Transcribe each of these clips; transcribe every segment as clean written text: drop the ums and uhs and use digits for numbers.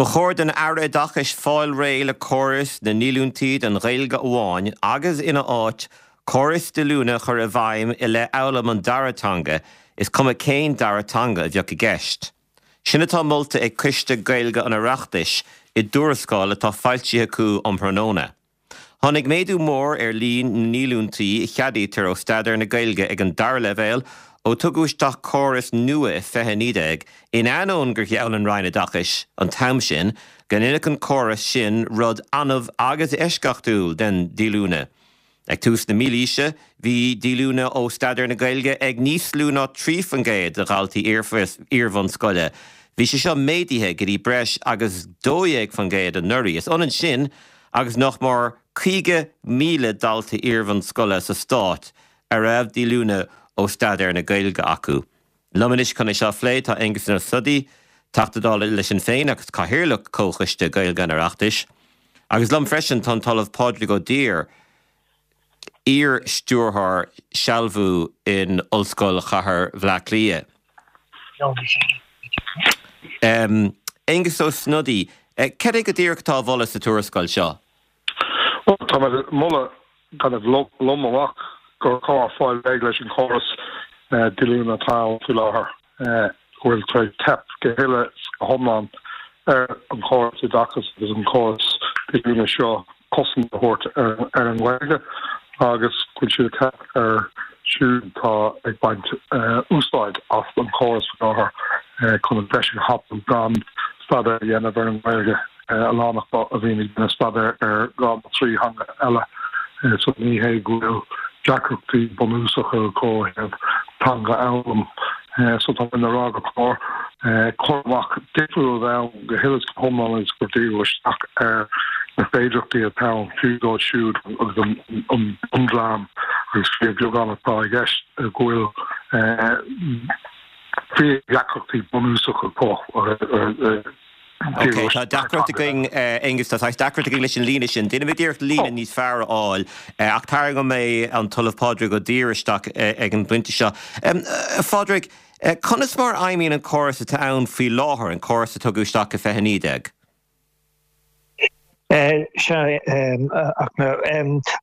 Ba chóir don Aire Oideachais fáil réidh le córas na ndíolúintí don Ghaeilge amháin agus ina áit, córas díolúine a chur i bhfeidhm i leith fhoghlaim an dara teanga, is cuma cén dara teanga a bheadh i gceist. Sin atá molta ag Coiste Gaeilge an Oireachtais i dtuarascáil atá foilsithe acu um thráthnóna. Tháinig méadú mór ar líon na ndíolúintí a cheadaítear ó staidéar na Gaeilge ag an dara leibhéal ó tugadh isteach córas nua i 2019, in ainneoin gur gheall an Roinn Oideachais an t-am sin go ndéanfadh an córas sin rud annamh agus eisceachtúil den díolúine. Ag tús na mílaoise, bhí díolúine ó staidéar na Gaeilge ag níos lú ná 3% de dhaltaí iar-bhunscoile. Bhí sé seo méadaithe go dtí breis agus 12% anuraidh. Is ionann sin agus nach mór 50,000 dalta iarbhunscoile sa stát a raibh díolúine ó staidéar na Gaeilge acu. Liom anois chun é seo a phlé tá Aengus Ó Snodaigh, Teachta Dála le Sinn Féin agus Cathaoirleach Chomhchoiste Gaeilge an Oireachtais, agus liom freisin tá an tOllamh Pádraig Ó Duibhir, iar-stiúrthóir sealbhú in Ollscoil Chathair Bhaile Átha Cliath. Aengus Ó Snodaigh, cad é go díreach atá á mholadh sa tuarascáil seo? Bhuel, tá mé ag moladh kind of lom amach gur chóir fáil réidh leis an chóras díolúine atá ann faoi láthair, go bhfuil tar éis teip go huile is go hiomlán ar an chóras oideachais agus an córas díolúine seo cosaint a thabhairt ar an nGaeilge agus go bhfuil siad ag teip ar siúd atá ag baint úsáid as an chóras faoi láthair chun an deis a thapú gan staidéar a dhéanamh ar an nGaeilge. A lán acu a bhíonn ag déanamh staidéar ar dhá nó trí theanga eile so ní hé go bhfuil deacrachtaí bunúsacha acu ó thaobh teanga a fhoghlaim. So tá mé ag rá gur chóir cur amach difriúil a bheith ann go huile is go hiomlán agus gur díriú isteach ar na féidearthachtaí atá ann fiú dóibh siúd agus an bundream agus fíorbheagán atá i gceist go bhfuil fíordheacrachtaí bunúsacha acu. Ok, tá deacracht againn, Aengus, tá saghas deacracht againn leis an líne sin. Déanfaimid iarracht líne níos fearr a fháil, ach tarraingeoidh mé an tOllamh Pádraig Ó Duibhir isteach ag an bpointe seo. A Phádraig, conas mar a fheidhmíonn an córas atá ann faoi láthair, an córas a tugadh isteach i 2019? Sea, ach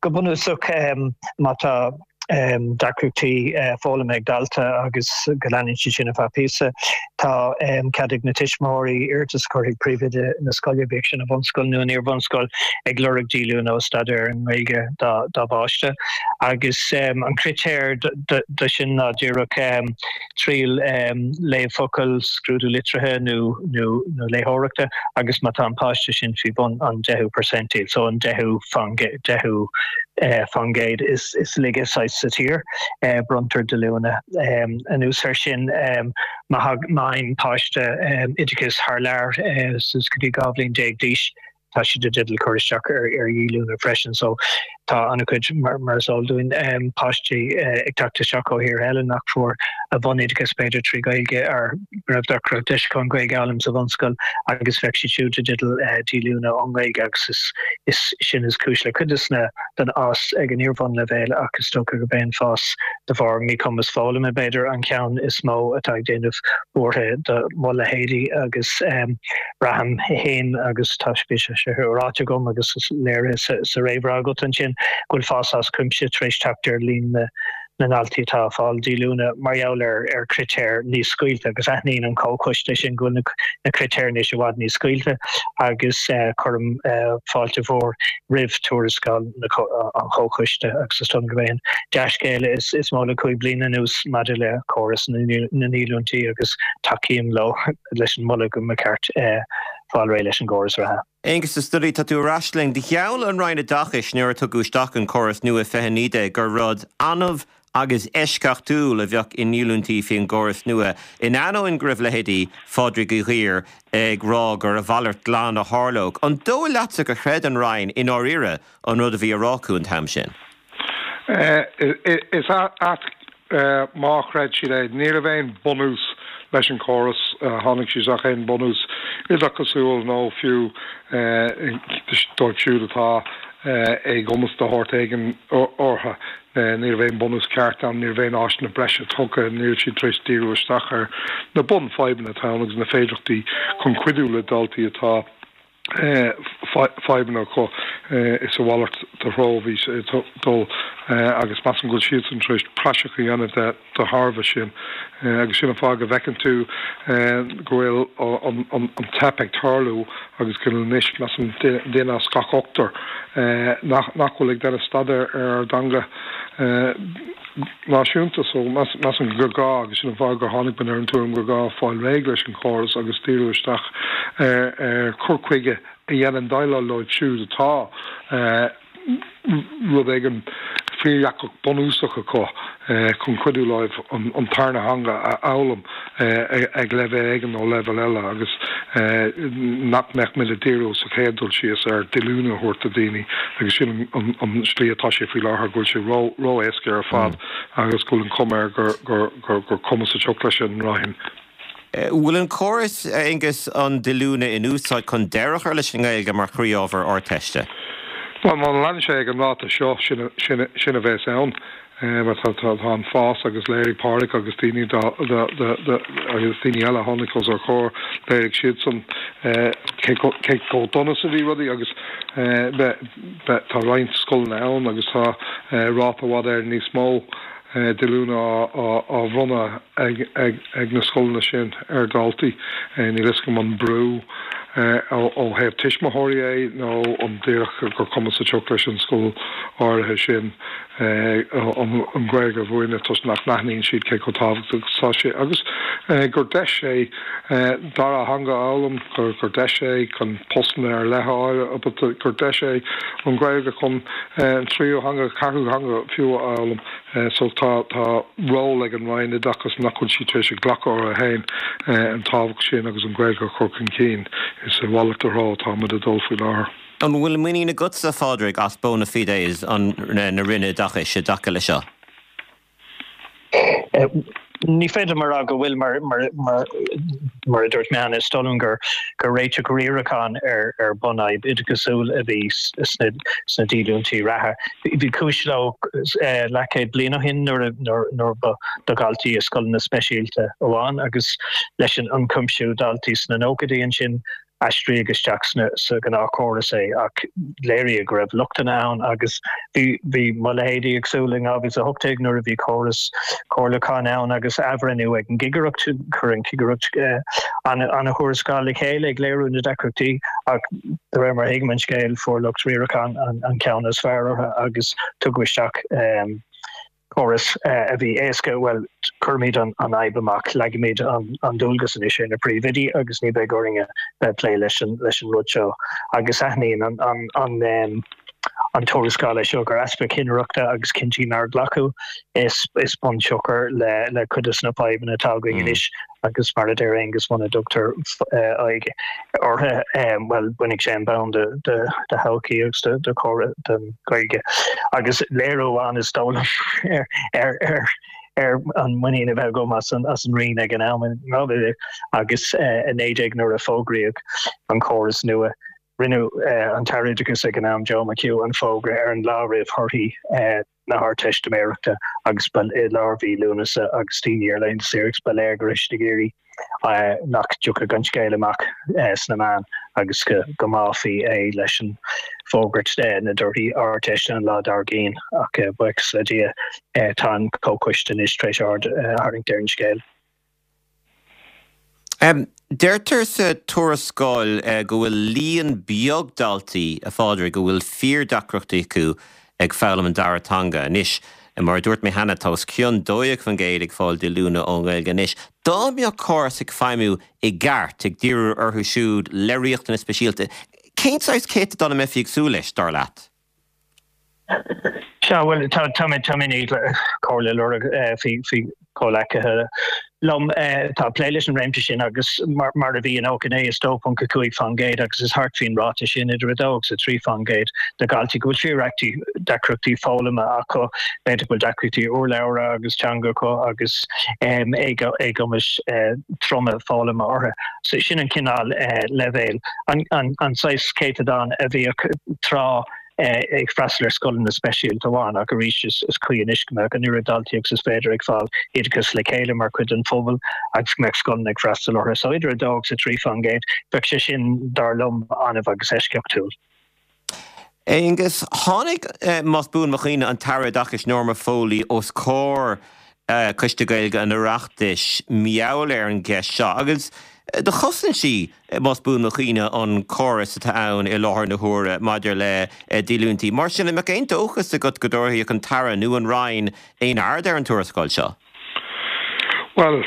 go bunúsach, má tá deacrachtaí foghlama ag dalta agus go leanann siad sin ar feadh píosa. Tá cead ag na tuismitheoirí iarratas a chur chuig príomhoide na scoile, bíodh sin i bhunscoil nó in iarbhunscoil, ag lorg díolúine ó staidéar ar an nGaeilge dá bpáiste. Agus an critéar do sin ná díreach triail léamh focal, scrúdú litrithe nó léitheoireachta agus má tá an páiste sin faoi bhun an deichiú percentile, so an deichiú faoin gcéad is laige saghas sa tír, bronntar díolúine. Anuas air sin, má fhaigheann páiste oideachas thar lear suas go dtí 12 bhliain d'aois, tá siad i dteideal cur isteach ar dhíolúine freisin. So tá an-chuid, mar is eol dúinn, páistí ag teacht isteach ó thíortha eile nach fuair a bhunoideachas b'fhéidir trí Ghaeilge ar raibh nach raibh deis acu an Ghaeilge a fhoghlaim sa bhunscoil agus bheadh siad siúd i dteideal díolúine ón nGaeilge agus is is sin is cúis le cuid des na den fhás ag an iarbhunleibhéal ach is dócha gurb é an fás de bharr míchumas foghlama b'fhéidir an ceann is mó atá ag déanamh buartha do mo leithéidí agus Braithim féin, agus tá bhí sé ráite agam agus léirithe sa réamhrá agat ansin, go bhfuil fás as cuimse tar éis teacht ar líon na ndaltaí atá ag fáil díolúine mar gheall ar chritéir níos scaoilte agus aithníonn an Comhchoiste sin go bhfuil na critéir anois i bhfad níos scaoilte agus cuirim fáilte mhór roimh tuarascáil an Chomhchoiste agus is dóigh liom gurb é an dea-scéala is mó le 5 bliana anuas maidir le córas na ndíolúintí agus tacaím leo. leis an moladh go mba cheart fáil réidh leis an gcóras reatha. Aengus Ó Snodaigh, tá tú ar ais linn. Do gheall an Roinn Oideachais nuair a tugadh isteach an córas nua i 2019 gur rud annamh agus eisceachtúil a bheadh i ndíolúintí faoin gcóras nua, in ainneoin go raibh leithéidí Phádraig Uí Dhuibhir ag rá gur a mhalairt glan a tharlódh. An dóigh leatsa gur chreid an Roinn i ndáiríre an rud a bhí á rá acu an t-am sin? Is ait má chreid siad é. Ní raibh aon bunús leis an chóras. Tháinig siad isteach aon bunús oideachasúil nó fiú dóibh siúd atá. Éagumas de shórt éigin orthu. Ní raibh aon bhunús ceart ann, ní raibh aon áiseanna breise tugtha, ní raibh siad tar éis díriú isteach ar na bunfhadhbanna atá ann agus na féidearthachtaí chun cuidiú le daltaí atá fadhbanna acu. Is a mhalairt de threo a bhí sé ag dul agus measaim go bhfuil siadsan tar éis praiseach a dhéanamh de de thairbhe sin agus sin an fáth go bhfeiceann tú go bhfuil an teip ag tarlú agus go bhfuil anois, measaim, duine as gach ochtar nach bhfuil ag déanamh staidéar ar ár dteanga náisiúnta. So, measaim gur gá, agus sin an fáth gur tháinig muid ar an tuairim gur gá fáil réidh leis an chóras agus díriú isteach ar chur chuige a dhéanann déileáil leo siúd atá rud éigin fíordheacair bunúsach acu chun cuidiú leo an tarna theanga a fhoghlaim ag leibhéal éigin nó leibhéal eile agus nach mbeadh muid ag díriú sa chéad dul síos ar díolúine a thabhairt do dhaoine agus sin an slí atá sé faoi láthair, go bhfuil sé ró-éasca ar fad agus go bhfuil an chuma air gur cuma sa tsioc leis an Roinn. Bhfuil an córas, a Aonghus, an díolúine in úsáid chun deireadh a chur leis an nGaeilge mar chroí-ábhar Ardteiste? Bhuel, má leanann sé ag an ráta seo, sin a bheas ann. Mar tá an fás agus léirigh Pádraig agus daoine agus daoine eile a tháinig os ár gcomhair, léirigh siadsan cé chomh dona is a bhí rudaí agus tá roinnt scoileanna ann agus tá ráta i bhfad Éireann níos mó díolúine á bhronnadh ag na scoileanna sin ar dhaltaí. Níl a fhios agam an brú ó thaobh tuismitheoirí é nó an díreach gur cuma sa tsioc leis an scoil áirithe sin an Ghaeilge a mhúineadh toisc nach n-aithníonn siad cé chomh tábhachtach is atá sé agus gur deis é dara theanga a fhoghlaim, gur deis é chun postanna ar leith a fháil, gur deis é an Ghaeilge chun an tríú theanga, ceathrú theanga fiú a fhoghlaim. So tá tá ról ag an Roinn Oideachais nach bhfuil sí tar éis a ghlacadh orthu féin an tábhacht sin agus an Ghaeilge a chur chun cinn. Is a mhalairt de threo atá muid ag dul faoi láthair. An bhfuil muinín agatsa, a Phádraig, as bona fides an na Roinne Oideachais i dtaca le seo? Ní féidir liom a rá go bhfuil, mar mar a dúirt mé cheana, is dóigh liom gur réiteach riaracháin ar bunfhadhb oideachasúil a bhí sna díolúintí reatha. Bhí cúis leo leathchéad bliain ó shin nuair nuair ba do dhaltaí i scoileanna speisialta amháin agus leis an ionchuimsiú daltaí sna nóchaidí ansin aistríodh isteach sa ghnáthchóras é ach léiríodh go raibh lochtanna ann agus bhí bhí mo leithéidí ag súil in 2018 nuair a bhí córas comhairliúcháin ann agus athbhreithniú ag an gCigireacht, chuir an Chigireacht an-thuarascáil le chéile ag léiriú na deacrachtaí ach de réir mar a thuigim an scéal fuair lucht riaracháin an ceann is fearr orthu agus tugadh isteach córas a bhí éasca, bhuel, cuirimid an fhadhb amach, leagaimid an dualgas anois ar na príomhoidí agus ní bheidh orainn a bheith ag plé leis an rud seo. Agus aithníonn an tuarascáil é seo gur easpa cinnireachta agus cinntí nár glacadh is bunsiocair le cuid de na fadhbanna atá againn anois. Agus mar a deir Aengus, muna dtugtar aghaidh orthu, bhuel, bainfidh sé an bonn de thodhchaí agus de chóras den Ghaeilge. Agus léiriú amháin is dóigh liom ar ar an muinín a bheith agam as an Roinn ag an am in 2019 nuair a fógraíodh an córas nua, rinne an tAire Oideachais ag an am, Joe McHugh, an fógra ar an lá roimh thorthaí na hArdteistiméireachta agus ba i lár mhí Lúnasa agus daoine ar laethanta saoire agus ba léir go raibh siad ag iarraidh nach dtiocfadh an scéal amach sna meáin agus go mbáfaí é leis an bhfógairt na dtorthaí Ardteiste an lá dár gcionn ach buíochas le Dia tá an Comhchoiste anois tar éis aird a tharraingt ar an scéal. Deirtear sa tuarascáil go bhfuil líon beag daltaí, a Phádraig, a bhfuil fíordheacrachtaí acu ag foghlaim an dara teanga. Anois, mar a dúirt mé cheana, tá os cionn 12% ag fáil díolúine ón nGaeilge anois. Dá mbeadh córas ag feidhmiú i gceart, ag díriú orthu siúd le riachtanais speisialta, cén saghas céatadán a mbeifí ag súil leis, dar leat? Sea, bhuel, tá tá mé tá mé i ndiaidh comhairle a lorg faoi faoi chomhleacaithe liom atá ag plé leis an réimse sin agus mar mar a bhí in 99 is 2.5% agus is thart faoin ráta sin idir 2 agus 3% de dhaltaí go bhfuil fíor deacrachtaí foghlama acu, b'fhéidir go bhfuil deacrachtaí urlabhra agus teanga acu agus éagumais troma foghlama orthu. So sin an cineál leibhéil, an an saghas céatadán a bhíodh tráth. Ag freastal ar scoileanna speisialta amháin ach arís is cuí anois go mbeadh an oiread daltaí agus is féidir ag fáil oideachas le chéile mar chuid den phobal agus go mbeadh scoileanna ag freastal orthu. So idir 2 agus 3%, bheadh sé sin, dar liom, annamh agus eisceachtúil. Aengus, tháinig, más buan mo chuimhne, an tAire Oideachais Norma Foley os comhair Coiste Gaeilge an Oireachtais mar gheall ar an gceist seo agus do chosain sí, más buan mo chuimhne, an córas atá ann i láthair na huaire maidir le díolúintí. Mar sin, an mbeadh aon dóchas agat go dtabharfadh an tAire nó an Roinn aon aird ar an tuarascáil seo? Bhuel,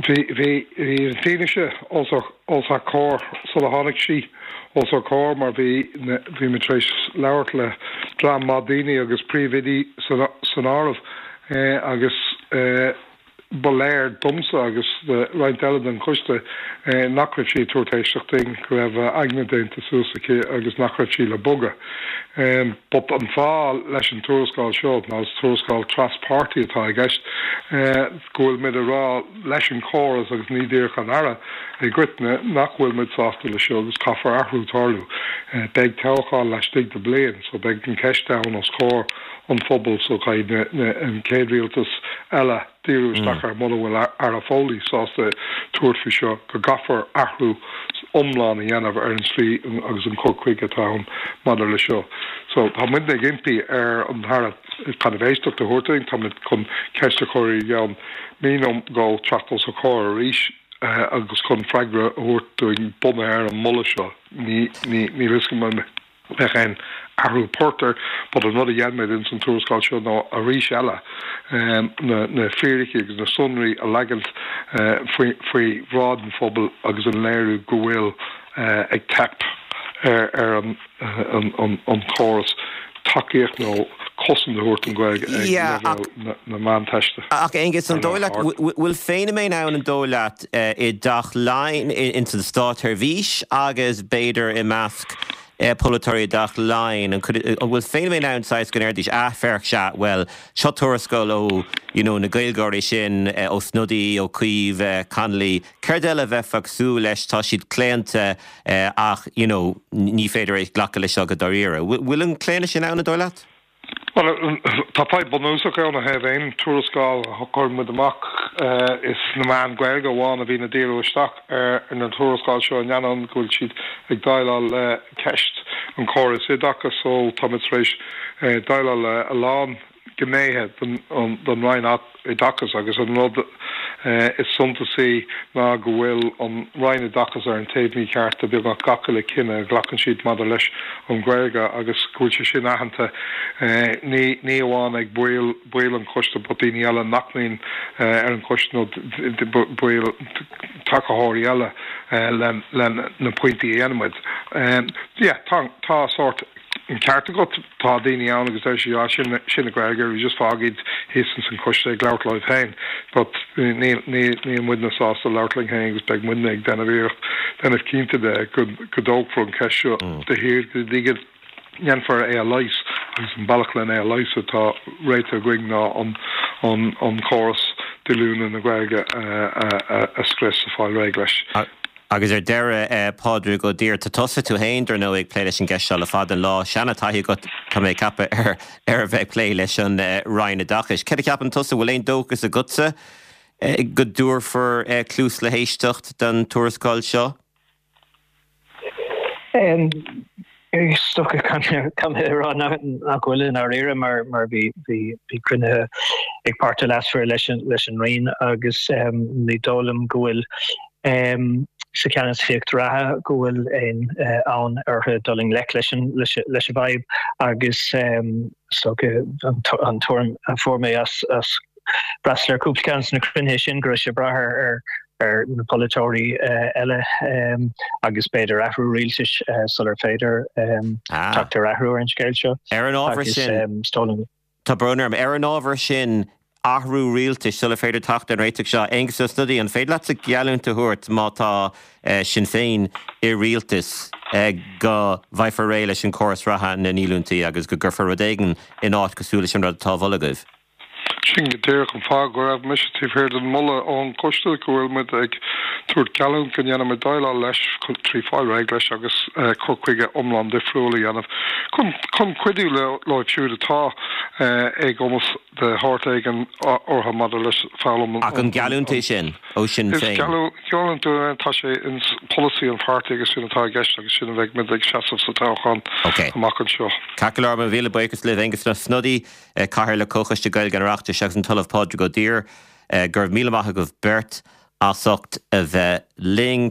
bhí, bhí, bhí an fianaise os ár, os ár comhair sula tháinig sí os ár comhair mar bhí, bhí muid tar éis labhairt le dream maith daoine agus príomhoidí san, san áireamh agus ba léir domsa agus do roinnt eile den choiste nach raibh sí ag tabhairt éisteacht dúinn, go raibh a aigne déanta suas aici agus nach raibh sí le bogadh. But an fáth leis an tuarascáil seo ná is tuarascáil tras-pháirtí atá i gceist, go bhfuil muid ag rá leis an chóras agus ní díreach an Aire i gcoitinne nach bhfuil muid sásta le seo agus caithfear athrú tarlú. Beidh toghchán laistigh de bliain so beidh an ceist ann os comhair an phobail so caithfidh an chéad rialtas eile díriú isteach air mura bhfuil Aire Foley sásta tabhairt faoi seo, go gcaithfear athrú iomlán a dhéanamh ar an tslí agus an cur chuige atá ann maidir le seo. So tá muidne ag impí ar an Aire kind of éisteacht a thabhairt dúinn, tá muid chun ceist a chur i gceann mí nó dhó teacht os ár comhair arís agus chun freagra a thabhairt dúinn bunaithe ar an moladh seo. Ní, ní, níl a fhios agam an. mbeidh aon athrú poirt air but an rud a dhein muid ins an tuarascáil seo ná arís eile na na fíricí agus na sonraí a leagaint faoi faoi bhráid an phobail agus an léiriú go bhfuil ag teip ar ar an an an chóras tacaíocht nó cosaint a thabhairt don Ghaeilge ag leibhéal na na Meánteiste. Ach Aengus, an dóigh leat, bhfuil feiniméan ann an dóigh leat i dTeach Laighean, ins an státsheirbhís agus b'fhéidir i measc polaiteoirí i dTeach Laighean, an bhfuil feiniméan ann saghas go ndéarfaidís, ah féach, sea, bhuel, seo tuarascáil ó, you know, na Gaeilgeoirí sin, Ó Snodaigh, Ó Cuív, Connolly, céard eile a bheifeá ag súil leis, tá siad claonta ach, you know, ní féidir é glacadh leis seo go dáiríre. Bhfuil an claonadh sin ann, an dóigh leat? Bhuel, tá fadhb bunúsach ann ó thaobh aon tuarascáil a chuireann muid amach. Is na meáin Ghaeilge amháin a bhíonn ag díriú isteach ar na tuarascáil seo in ainneoin go bhfuil siad ag déileáil le ceist an chórais oideachais so tá muid tar éis déileáil le a lán gnéithe den Roinn Oideachais agus an rud is suntasaí ná go bhfuil an Roinn Oideachais ar an taobh mícheart de beagnach gach uile cinneadh a ghlacann siad maidir leis an Ghaeilge agus go bhfuil sé sin aitheanta ní ní amháin ag baill baill an choiste but daoine eile nach mbíonn ar an choiste nó baill tacaitheoirí eile le le na pointí a dhéanann muid. Yeah, tá tá sórt An ceart agat, tá daoine ann agus deir siad, ah, sin, sin na Gaeilgeoirí, just fág iad thíos ins an choiste ag labhairt leo féin. But níl, níl, níl muidne sásta labhairt linn féin agus beidh muidne ag déanamh iarracht, déanamh cinnte de go, go dtógfar an cheist seo de shíor go dtí go ndéanfar é a leigheas agus an bealach len é a leigheas atá réitithe againn ná an, an, an córas díolúine na Gaeilge a, a, a, a scrios, a fáil réidh leis. Agus ar deireadh, Pádraig Ó Duibhir, tá tusa tú féin, dar ndóigh, ag plé leis an gceist seo le fada an lá. Seana-taithí agat, tá mé ag ceapadh, ar ar a bheith ag plé leis an Roinn Oideachais. Céard a cheapann tusa, bhfuil aon dóchas agatsa go dtabharfar cluas le héisteacht don tuarascáil seo? Is dócha caithfidh mé a rá nach bhfuil i ndáiríre mar bhí cruinnithe ag páirtithe leasmhara leis an Roinn agus ní dóigh liom go bhfuil sa cheannasaíocht reatha go bhfuil aon fhonn orthu dul i ngleic leis an bhfadhb agus is dócha an tuairim a fuair mé as freastal ar cúpla ceann de na cruinnithe sin go raibh sé ag brath ar ar na polaiteoirí eile agus b'fhéidir athrú rialtais sular féidir teacht ar athrú ar an scéal seo. Ar an ábhar sin, tá brón orm, ar an ábhar sin, athrú rialtais sular féidir teacht ar an réiteach seo, Aengus Ó Snodaigh, an féidir leatsa geallúint a thabhairt má tá Sinn Féin i rialtas go bhfaighfear réidh leis an córas reatha na ndíolúintí agus go gcuirfear rud éigin in áit cosúil leis an rud atá á mholadh agaibh? Sin go díreach an fáth go raibh mise taobh thiar den mholadh ón gcoiste go bhfuil muid ag tabhairt geallúint go ndéanfaimid déileáil leis trí fáil réidh leis agus cur chuige iomlán difriúil a dhéanamh chun chun cuidiú leo siúd atá éagumas de shórt éigin orthu maidir leis foghlaim an Ach an geallúint é sin ó Sinn Féin? Is geallúint é, tá sé in polasaí an pháirtí agus sin atá i gceist agus sin a bheidh muid ag seasamh sa toghchán amach anseo. Ceart go leor, mo mhíle buíochas libh, Aengus Ó Snodaigh. Cathaoirleach Comhchoiste Gaeilge an Oireachtais agus an tOllamh Pádraig Ó Duibhir. Go raibh míle maith agaibh beirt as ucht a bheith linn.